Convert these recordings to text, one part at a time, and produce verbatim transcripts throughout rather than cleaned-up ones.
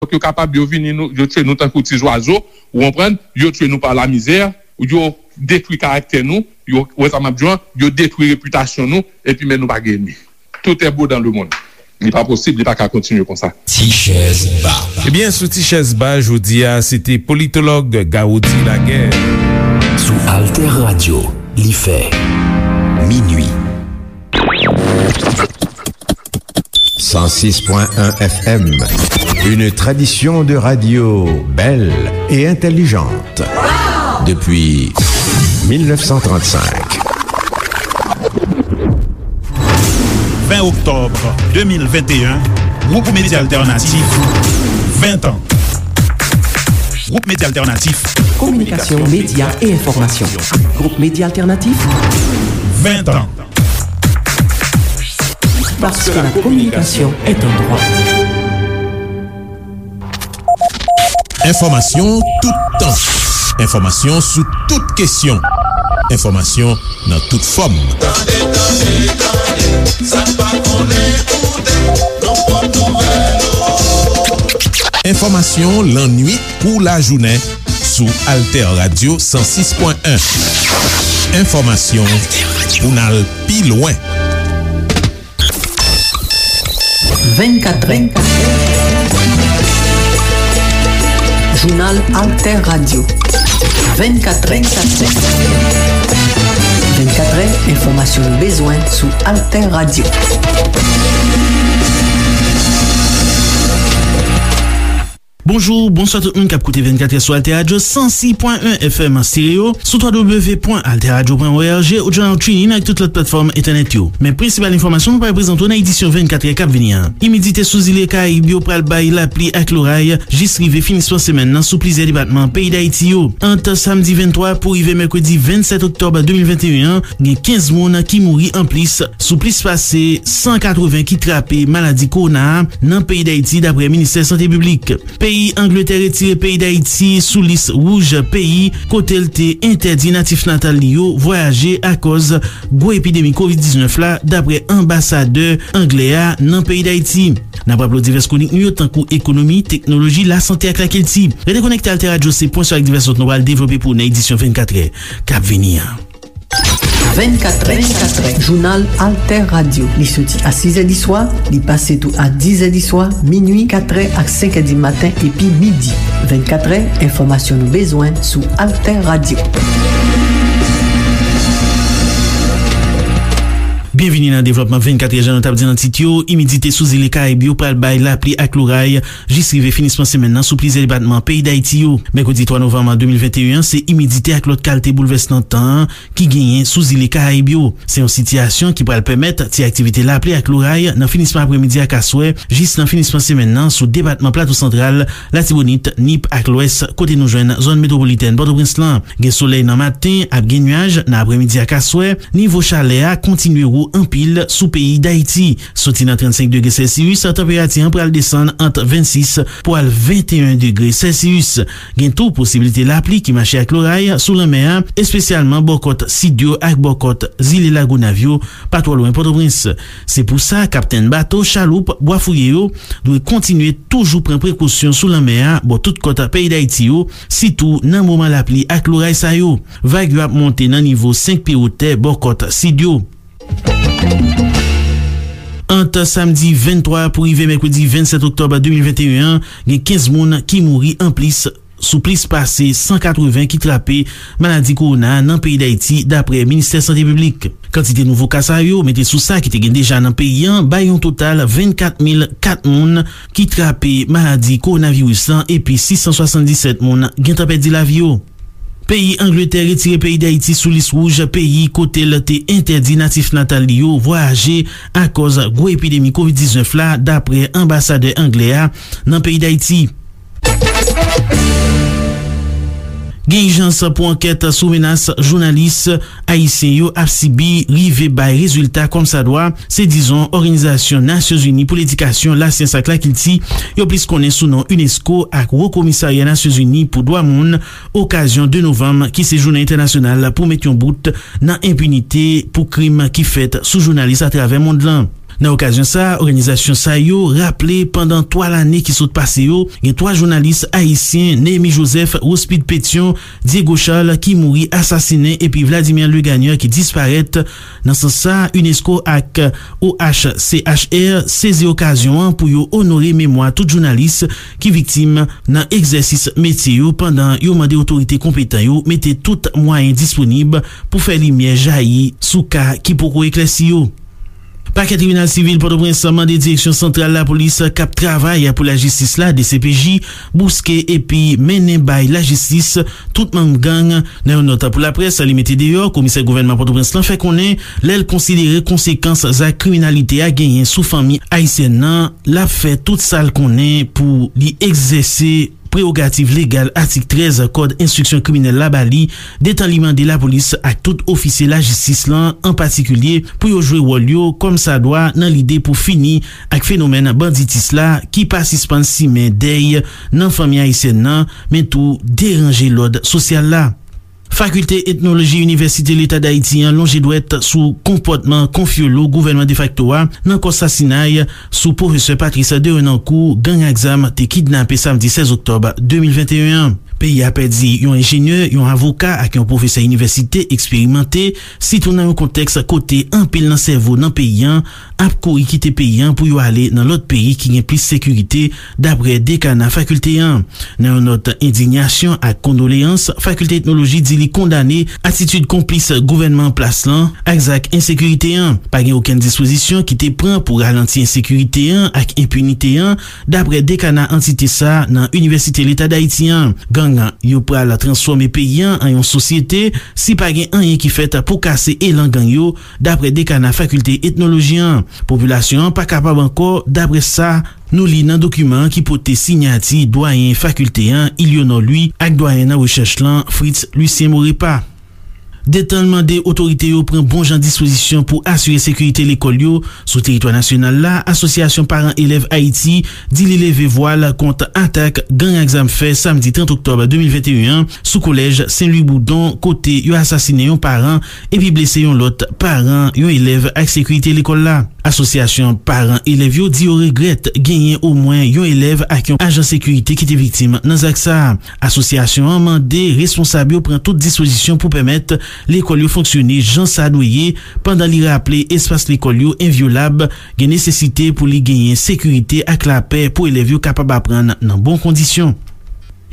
Donk, yo kapab, yo vini, nou, yo tchwe nou tankou ti zwazo, ou konprann? Yo tchwe nou pa lamizè, yo detwi karaktè nou, yo, wè sa m ap di w an, yo detwi repitasyon nou, epi men nou pa gen enmi. Tout est beau dans le monde. Li pa posib, li pa ka kontinye konsa. Ti chèz ba. Ebyen, sou Ti chèz ba, jodi a, se te politològ Garoudy Laguerre. Sou Alter Radio, li fè minui. Cent six point un F M, une tradition de radio belle et intelligente depuis mille neuf cent trente-cinq. Ven oktòb de mil venteyen, Gwoup Medya Altènatif, ven tan. Gwoup Medya Altènatif. Kominikasyon, medya e enfòmasyon. Gwoup Medya Altènatif, ven tan. Parce que la communication est un droit. Enfòmasyon toutan. Enfòmasyon sou tout kesyon. Enfòmasyon nan tout fòm. Tande, tande, tande, sa n pa konnen koute, nou pot nouvèl ou. Enfòmasyon lannwit kou lajounen sou Alter Radio san sis pwen en. Enfòmasyon pou n al pi lwen. Vennkatrè. Jounal Alter Radio. Vennkatrè. Vennkatrè, enfòmasyon nou bezwen sou Alter Radio. Bonjou, bonswa tout moun k ap koute vennkatrè sou Alter Radio san sis pwen en F M an stereo, sou w w w pwen alter radio pwen o r g, ou journal TuneIn ak tout lòt platfòm entènèt yo. Men prensipal enfòmasyon nou pral prezante w nan edisyon vennkatrè k ap vini an. Imidite sou zile Karayib yo pral bay lapli ak loray jis rive finisman semèn nan sou plizyè depatman peyi Dayiti yo. Ant samdi venntwa pou rive mèkredi vennsèt oktòb de mil venteyen an, gen kenz moun ki mouri anplis sou plis pase san katreven ki trape maladi kowona a nan peyi Dayiti, dapre ministè sante piblik. Peyi Angletè retire peyi Dayiti sou lis wouj peyi kote l te entèdi natif natal li yo vwayaje akòz gwo epidemi kovid diznèf la, dapre anbasadè anglè a nan peyi Dayiti. N ap raple w divès kwonik nou yo, tankou ekonomi, teknoloji, lasante ak lakilti. Rete konekte Alter Radio, se pwen sou ak divès lòt nou pral devlope pou w nan edisyon vennkatrè k ap vini an. Vennkatrè, vennkatrè, jounal Alter Radio. Li soti a sizè di swa, li pase tou a dizè di swa, minui, katrè ak senkè di maten epi midi. Vennkatrè, enfòmasyon nou bezwen sou Alter Radio. Byenvini nan devlòpman vennkatrè, jan nou t ap di nan tit yo, imidite sou zile Karayib yo pral bay lapli ak loray jis rive finisman semèn nan sou plizyè depatman peyi Dayiti yo. Mèkredi twa novanm de mil venteyen an, se imidite ak lòt kalte boulvès nan tan an ki genyen sou zile Karayib yo. Se yon sitiyasyon ki pral pèmèt ti aktivite lapli ak loray nan finisman aprèmidi ak aswè, jis nan finisman semèn nan sou depatman Plato Santral, Latibonit, Nip ak Lwès, kote nou jwenn zòn metwopolitèn Pòtoprens lan. Gen solèy nan maten, ap gen nyaj nan aprèmidi ak aswè. Nivo chalè a kontinye wo anpil sou peyi Dayiti. Soti nan trannsenk degre sèlsiyis, tanperati an pral desann ant vennsis pou al venteyen degre sèlsiyis. Gen tou posiblite lapli ki mache ak loray sou lanmè a, espesyalman bò kòt sid yo ak bò kòt zile Lagonav yo, pa twò lwen Pòtoprens. Se pou sa, kaptenn bato, chaloup, bwafouye yo dwe kontinye toujou pran prekosyon sou lanmè a, bò tout kòt peyi Dayiti yo, sitou nan moman lapli ak loray sa yo. Vag yo ap monte nan nivo senk pye wotè bò kòt sid yo. Ant samdi venntwa pou rive mèkredi vennsèt oktòb de mil venteyen an, gen kenz moun ki mouri anplis sou plis pase san katreven ki trape maladi kowona a nan peyi Dayiti, dapre ministè sante piblik. Kantite nouvo ka sa yo, mete sou sa ki te gen deja nan peyi an, bay yon total vennkat mil kat moun ki trape maladi kowonaviris lan, epi sis san swasanndisèt moun gentan pèdi lavi yo. Peyi Angletè retire peyi Dayiti sou lis wouj peyi kote l te entèdi natif natal li yo vwayaje akòz gwo epidemi kovid diznèf la, dapre anbasadè anglè a nan peyi Dayiti. Gen ijans pou ankèt sou menas jounalis ayisyen yo ap sibi rive bay rezilta kòmsadwa, se dizon Òganizasyon Nasyonzini pou Ledikasyon, Lasyans ak Lakilti, yo plis konnen sou non unesco, ak Wo Komisarya Nasyonzini pou Dwa Moun, okazyon de novanm, ki se jounen entènasyonal pou met yon bout nan enpinite pou krim ki fèt sou jounalis atravè mond lan. Nan okazyon sa a, òganizasyon sa yo raple pandan twa lane ki sot pase yo, gen twa jounalis ayisyen, Néhémie Joseph, Rospide Pétion, Diego Charles, ki mouri asasinen, epi Vladimir Legagneur ki disparèt. Nan sans sa, unesco ak O H C H R sezi okazyon an pou yo onore memwa tout jounalis ki viktim nan egzèsis metye yo, pandan yo mande otorite konpetan yo mete tout mwayen disponib pou fè limyè jayi sou ka ki poko eklèsi yo. Pakè Tribinal Sivil Pòtoprens mande Direksyon Santral Lapolis k ap travay pou lajistis la, D C P J, bouske epi mennen bay lajistis tout manm gang. Nan yon nòt pou laprès, li mete deyò, komisè gouvènman Pòtoprens lan fè konnen lè l konsidere konsekans zak kriminalite a genyen sou fanmi ayisyèn nan, l ap fè tout sa l konnen pou li egzèse prewogativ legal atik trèz Kòd Enstriksyon Kriminèl la ba li, detan li mande lapolis ak tout ofisye lajistis lan an patikilye pou yo jwe wòl yo kòmsadwa nan lide pou fini ak fenomèn banditis la ki pa sispann simen dèy nan fanmi ayisyèn nan, men tou deranje lòd sosyal la. Fakilte Etnoloji Inivèsite Leta Dayiti an lonje dwèt sou konpòtman konfyolo gouvènman defakto a nan kò sasinay sou pwofesè Patrice Derenoncourt gang ak zam te kidnape samdi sèz oktòb de mil venteyen an. Peyi a pèdi yon enjenyè, yon avoka ak yon pwofesè inivèsite eksperimante, sitou nan yon kontèks kote anpil nan sèvo nan peyi an ap kouri kite peyi an pou yo ale nan lòt peyi ki gen plis sekirite, dapre dekana fakilte an. Nan yon nòt endinyasyon ak kondoleyans, Fakilte Etnoloji di li kondane atitid konplis gouvènman an plas lan ak zak ensekirite an. Pa gen okenn dispozisyon ki te pran pou ralanti ensekirite an ak enpinite an, dapre dekana antite sa a nan Inivèsite Leta Dayiti an. Gang yo pral transfòme peyi an an yon sosyete si pa gen anyen ki fèt pou kase elan gang yo, dapre dekana Fakilte Etnoloji an. Popilasyon an pa kapab ankò, dapre sa nou li nan dokiman an ki pote siyati dwayen fakilte an, Ilionor Louis, ak dwayen nan rechèch lan, Fritz Lucien Morepa. Detan l mande otorite yo pran bon jan dispozisyon pou asire sekirite lekòl yo sou teritwa nasyonal la, Asosyasyon Paran Elèv Ayiti di li leve vwa l kont atak gang ak zam fè samdi trant oktòb de mil venteyen an sou kolèj Sen Lwi Boudon, kote yo asasinen yon paran epi blese yon lòt paran, yon elèv ak sekirite lekòl la. Asosyasyon paran elèv yo di yo regrèt genyen omwen yon elèv ak yon ajan sekirite ki te viktim nan zak sa a. Asosyasyon an mande responsab yo pran tout dispozisyon pou pèmèt lekòl yo fonksyone jan sa dwe ye, pandan li raple espas lekòl yo envyolab, gen nesesite pou li genyen sekirite ak lapè pou elèv yo kapab aprann nan bon kondisyon.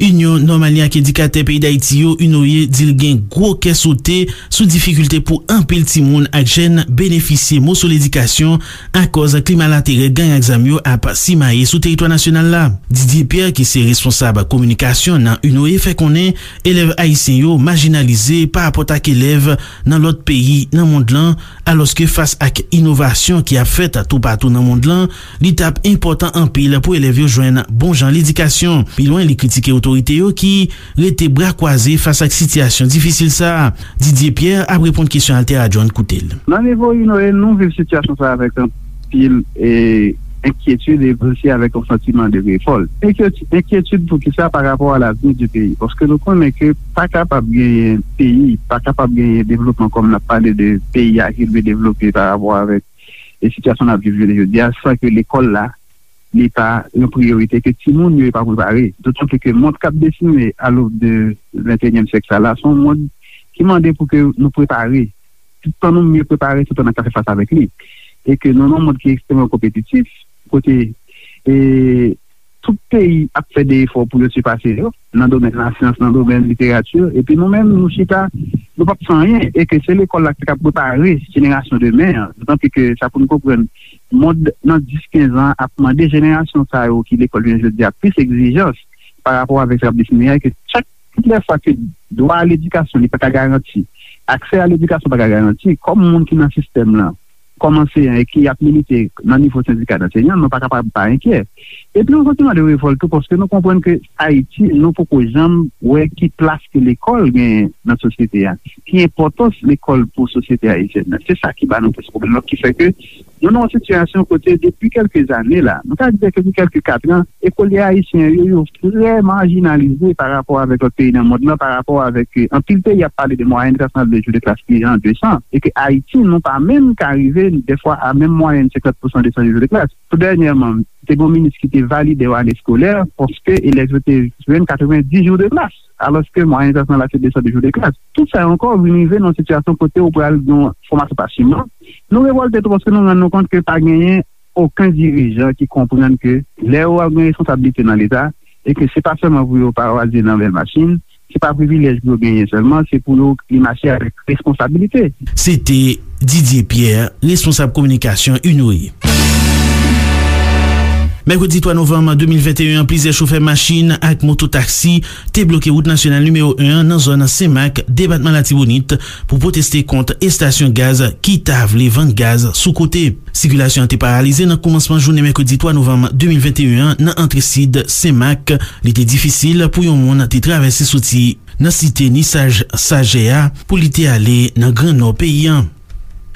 Inyon Nòmalyen ak Endikatè Peyi Dayiti yo, UNOYE, di l gen gwo kè sote sou difikilte pou anpil timoun ak jèn benefisye moso ledikasyon akòz klima laterè gang ak zam yo ap simaye sou teritwa nasyonal la. Didier Pierre, ki se responsab kominikasyon nan UNOYE, fè konnen elèv ayisyen yo majinalize parapòt ak elèv nan lòt peyi nan mond lan, alòske fas ak inovasyon ki ap fèt toupatou nan mond lan, li t ap enpòtan anpil pou elèv yo jwenn bon jan ledikasyon. Pi lwen, li kritike otorite yo ki rete bra kwaze fas ak sitiyasyon difisil sa a. Didier Pierre ap reponn kesyon Altera John, koute l. Nan nivo UNOYE, nou viv sitiyasyon sa a avèk anpil, e, enkyetid e osi avèk yon santiman de revòlt. Enkyeti-, enkyetid pou ki sa? Pa rapò a lavni di peyi. Paske nou konnen ke pa kapab genyen peyi, pa kapab genyen devlopman, kòm n ap pale de peyi a ki dwe devlope pa rapò avèk, e, sitiyasyon n ap viv jounen jodi a, san ke lekòl la, li pa yon priyorite, ke timoun yo pa prepare. Dotan pli ke mond k ap desine a l'aube de venteyenyèm syèk sa la, se yon mond ki mande pou ke nou prepare. Tout tan nou mye prepare, tout tan n ap ka fè fas avèk li. E ke nou nan yon mond ki ekstrèmman konpetitif, kote, e, tout peyi ap fè de efò pou yo sipase yo, nan domèn lasyans, nan domèn literati, epi nou menm, nou chita, nou p ap fè anyen, e ke se lekòl la ki ka prepare jenerasyon demen an. Dotan pli ke sa pou nou konprann, mond nan dis, kenz an ap mande jenerasyon sa yo ki lekòl jounen jodi a plis egzijans pa rapò avèk sa k ap desine a, e ke chak, tout lè fwa ke dwa a ledikasyon li pa ka garanti, aksè a ledikasyon pa ka garanti, kòm moun ki nan sistèm lan, kòm anseyan e ki ap milite nan nivo sendika anseyan, nou pa kapab pa enkyè. Epi yon santiman de revòlt tou, paske nou konprann ke Ayiti, nou poko janm wè ki plas ke lekòl genyen nan sosyete a, ki enpòtans lekòl pou sosyete ayisyèn nan. Se sa ki ba nou plis pwoblèm, ki fè ke Nou nan yon sitiyasyon kote depi kèlke zane la, nou ka di depi kèlke katran, ekolye ayisyen yo, yo trè majinalize pa rapò avèk lòt peyi nan mond lan, pa rapò avèk, eh, anpil peyi ap pale de mwayèn trant de jou de klas ki an de san, e ke Ayiti, nou pa menm ka rive, dèfwa, a menm mwayèn senkant pousan de san jou de klas. Tou dènyèman, te gen yon minis ki te valide yon ane eskolè, paske elèv yo te jwenn katrevenndis jou de klas, alòske mwayèn klas lan la se de san de jou de klas. Tout sa yo ankò vin rive nan yon sitiyasyon kote ou pral gen yon fòmasyon pa siman. Nou revòlte tou paske nou rann nou kont ke pa genyen okenn dirijan ki konprann ke lè yo ap gen responsablite nan Leta, e ke se pa sèlman pou yo pa waze nan bèl machin, se pa privilèj pou yo genyen sèlman, se pou yo li mache avèk responsabilite. Se te Didier Pierre, responsab kominikasyon Inouye. Mèkredi twa novanm de mil venteyen an, plizyè chofè machin ak moto taksi te bloke wout nasyonal nimewo en an nan zòn Senmak, depatman Latibonit, pou pwoteste kont estasyon gaz ki ta vle vann gaz sou kote. Sikilasyon an te paralize nan kòmansman jounen mèkredi twa novanm de mil venteyen an nan antre sid Senmak. Li te difisil pou yon moun te travèse soti nan site Nisaj Sajè a pou li te ale nan Gran Nò peyi an.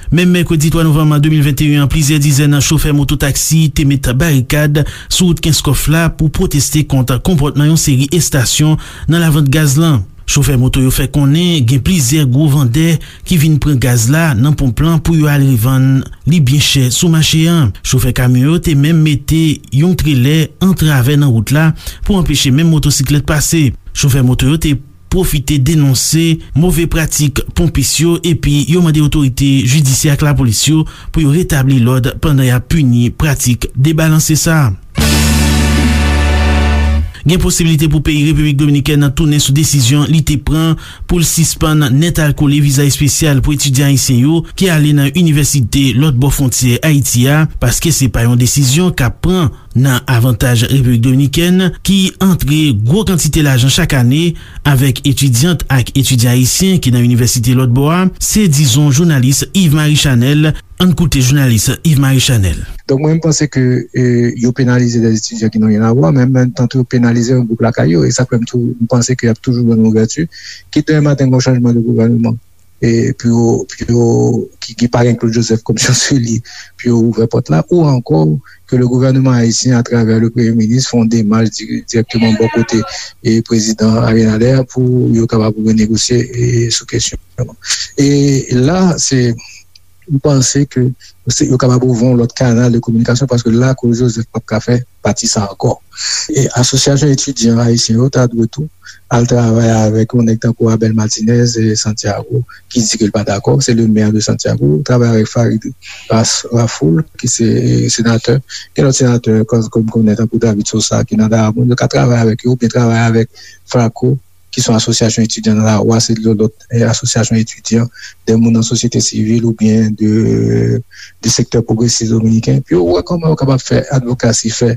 Menm mèkredi twa novanm de mil venteyen an, plizyè dizèn chofè moto taksi te met barikad sou wout Kenskòf la pou pwoteste kont konpòtman yon seri estasyon nan lavant gaz lan. Chofè moto yo fè konnen gen plizyè gwo vandè ki vin pran gaz la nan ponp lan pou yo al revann li byen chè sou mache an. Chofè kamyon yo te menm mete yon trelè an travè nan wout la pou anpeche menm motosiklèt pase. Chofè moto yo te pwofite denonse move pratik ponpis yo epi yo mande otorite jidisyè ak lapolis yo pou yo retabli lòd pandan y ap pini pratik debalanse sa a. Gen posiblite pou peyi Repiblik Dominikèn nan tounen sou desizyon li te pran pou l sispann nèt al kole viza espesyal pou etidyan ayisyen yo ki ale nan inivèsite lòt bò fwontyè Ayiti a, paske se pa yon desizyon k ap pran nan avantaj Repiblik Dominikèn, ki antre gwo kantite lajan chak ane avèk etidyant ak etidyan ayisyen ki nan inivèsite lòt bò a, se dizon jounalis Yves Marie Chanel. Ann koute jounalis Yves Marie Chanel. Donk, mwen, m panse ke, eh, yo penalize dè etidyan ki nan ryen a vwa, men an menm tan tou, yo penalize yon gwoup lakay yo. E sa k fè m tou, m panse ke y ap toujou jwenn yon ouvèti. Kit demen maten, gen yon chanjman de gouvènman, e pou yo, pou yo, ki, ki pa gen Claude Joseph kòm chanseli, pou yo ouvè pòt la, ou ankò ke le gouvènman ayisyen, atravè le premye minis, fè yon demach di-, dirèkteman bò kote e prezidan Abinader pou yo kapab renegosye, e sou kesyon. E la, se, m panse ke se, yo kapab ouvri yon lòt kanal de kominikasyon, paske la, Claude Joseph p ap ka fè pati sa ankò. E asosyasyon etidyan ayisyen yo ta dwe tou al travay avèk yon nèg tankou Abel Martinez e Santiago, ki di ke l pa dakò, se le mè de Santiago, travay avèk Farid Ras-, Rafoul, ki se senatè, gen lòt senatè, kòm, kòm konnen, tankou David Sosa, ki nan Daramoun, yo ka travay avèk yo, oubyen travay avèk Flaco, ki se yon asosyasyon etidyan nan lari a, se yon lòt, eh, asosyasyon etidyan, de moun nan sosyete sivil oubyen de, de sektè pwogresis dominiken, pou yo wè kòman yo kapab fè advokasi, fè,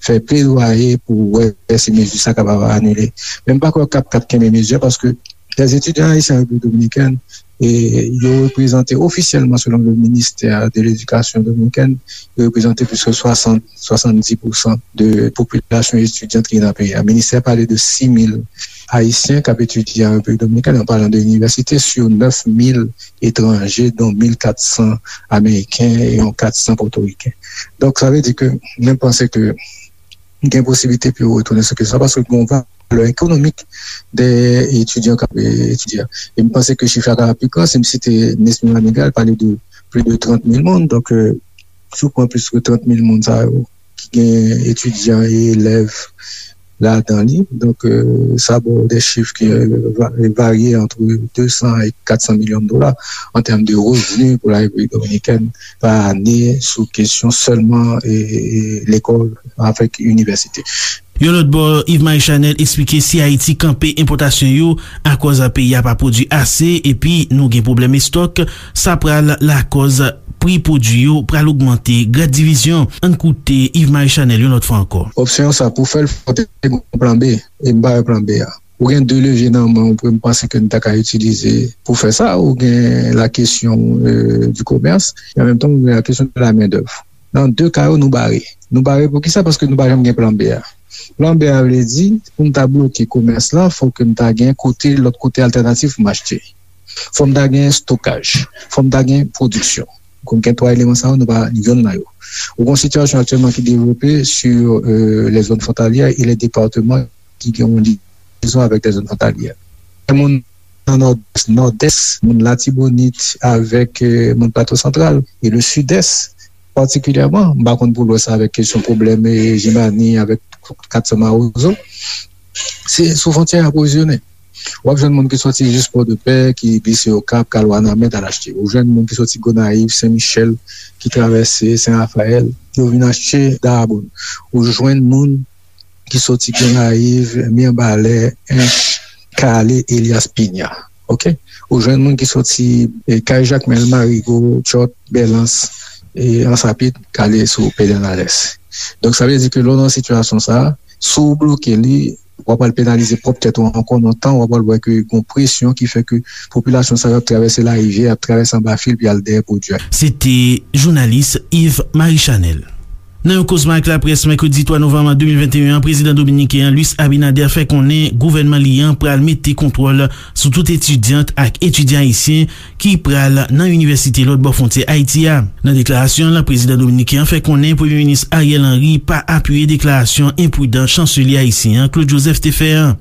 fè pledwaye pou wè si mezi sa kapab anile. Men m pa kwè k ap, k ap kenbe mezi a, paske lè etidyan ayisyen an Repiblik Dominikèn, e yo reprezante ofisyèlman, selon le ministère de l'Éducation dominicaine, yo reprezante plis ke swasant, swasanndis pousan de popilasyon etidyant ki nan peyi a. Ministè a pale de sis mil Ayisyen k ap etidye an Repiblik Dominikèn, an palan de inivèsite, sou nèf mil etranje, dont mil kat san Ameriken e yon kat san Pòtoriken. Donk, sa vle di ke mwen panse ke gen posiblite pou yo retounen sou kesyon sa, paske gen yon valè ekonomik dèyè etidyan k ap, eh, etidye a. E m panse ke chif la ka pi gran, si m site Nesmy Manigat, l pale de plis de trant mil moun. Donk, eh, si w pran plis ke trant mil moun sa yo, ki gen etidyan e elèv ladan li. Donk, eh, sa ba w de chif ki, eh, va-, varye ant de san e kat san milyon dola an tèm de revni pou la Repiblik Dominikèn pa ane sou kesyon sèlman, eh, eh, lekòl avèk inivèsite. Yon lòt bò, Yves Marie Chanel eksplike si Ayiti kanpe enpòtasyon yo akòz peyi a pa pwodui ase epi nou gen pwoblèm estòk, sa pral lakòz pri pwodui yo pral ogmante. Grad divizyon, ann koute Yves Marie Chanel yon lòt fwa ankò. Opsyon sa pou fè l, fò te gen yon plan B, e m pa wè plan B a. Ou gen de levye nan men w, m panse ke n ta ka itilize pou fè sa. Ou gen la kesyon, eh, du commerce, e an menm tan, ou gen la kesyon de la main d'œuvre. Nan de ka yo, nou bare. Nou bare pou ki sa? Paske nou pa janm gen plan B a. Plan B a vle di, pou m ta bloke komès lan, fò ke m ta gen kote, lòt kote altènatif pou m achte. Fò m ta gen estokaj. Fò m ta gen pwodiksyon. Kon gen twa eleman sa yo, nou pa yonn nan yo. Ou gen yon sitiyasyon aktyèlman ki devlope sur, euh, les zones frontalières et les départements ki gen yon liyezon avèk les zones frontalières. Moun nan Nòdès, Nòdès, moun Latibonit avèk, euh, moun Plato Santral e le Sidès patikilyèman, m pa konn pou Lwès avèk kesyon pwoblèm, eh, Jimani avèk kat san Mawozo. Se sou fwontyè y apwovizyone. W ap jwenn moun ki soti jis Pòdepè, ki glise Okap, k al Wanament, al achte. Ou jwenn moun ki soti Gonayiv, Sen Michèl, ki travèse Sen Rafayèl, yo vin achte Dayabonn. Ou jwenn moun ki soti Gonayiv, Mibalè, Ench, k ale Elias Pinya. Oke? Ou jwenn moun ki soti, eh, Kay Jakmèl, Marigo, Tchòt, Bèlans, e Ansapit, k ale sou Pedènales. Donk, sa vle di ke lè w nan sitiyasyon sa a, si w bloke li, w ap al penalize pwòp tèt ou ankò nan tan, w ap al wè ke gon presyon ki fè ke popilasyon sa yo ap travèse larivyè, ap travèse anba fil, pou y al dèyè pwodui a. Se te jounalis Yves Marie Chanel. Nan yon kozman ak laprès mèkredi twa novanm de mil venteyen an, prezidan dominiken an, Luis Abinader, fè konnen gouvènman li an pral mete kontwòl sou tout etidyant ak etidyan ayisyen ki pral nan inivèsite lòt bò fwontyè Ayiti a. Nan deklarasyon l, prezidan dominiken an fè konnen Premye Minis Ariel Henry pa apiye deklarasyon enpridan chanselye ayisyen an, Claude Joseph, te fè an.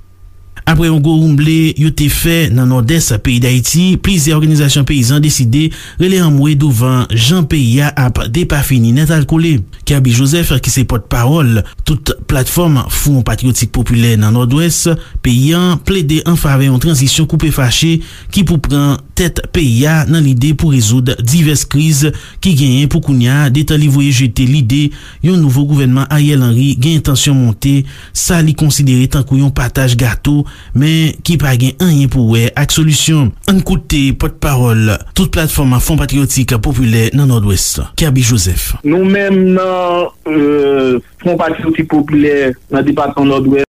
Apre yon gwo woumble yo te fè nan Nòdès peyi Dayiti, plizyè òganizasyon peyizan deside rele anmwe douvan jan peyi a ap depafini nètalkole. Kerby Joseph, ki se pòtpawòl tout platfòm Fwon Patriyotik Popilè nan Nòdwès peyi a, plede an favè yon tranzisyon koupe fache ki pou pran tèt peyi a nan lide pou rezoud divès kriz ki genyen pou kounye a, detan li voye jete lide yon nouvo gouvènman Ariel Henry gen entansyon monte, sa li konsidere tankou yon pataj gato, men ki pa gen anyen pou wè ak solisyon. Ann koute pòtpawòl tout platfòm Fwon Patriyotik Popilè nan Nòdwès, Kerby Joseph. Nou menm nan, euh, Fwon Patriyotik Popilè nan depatman Nòdwès,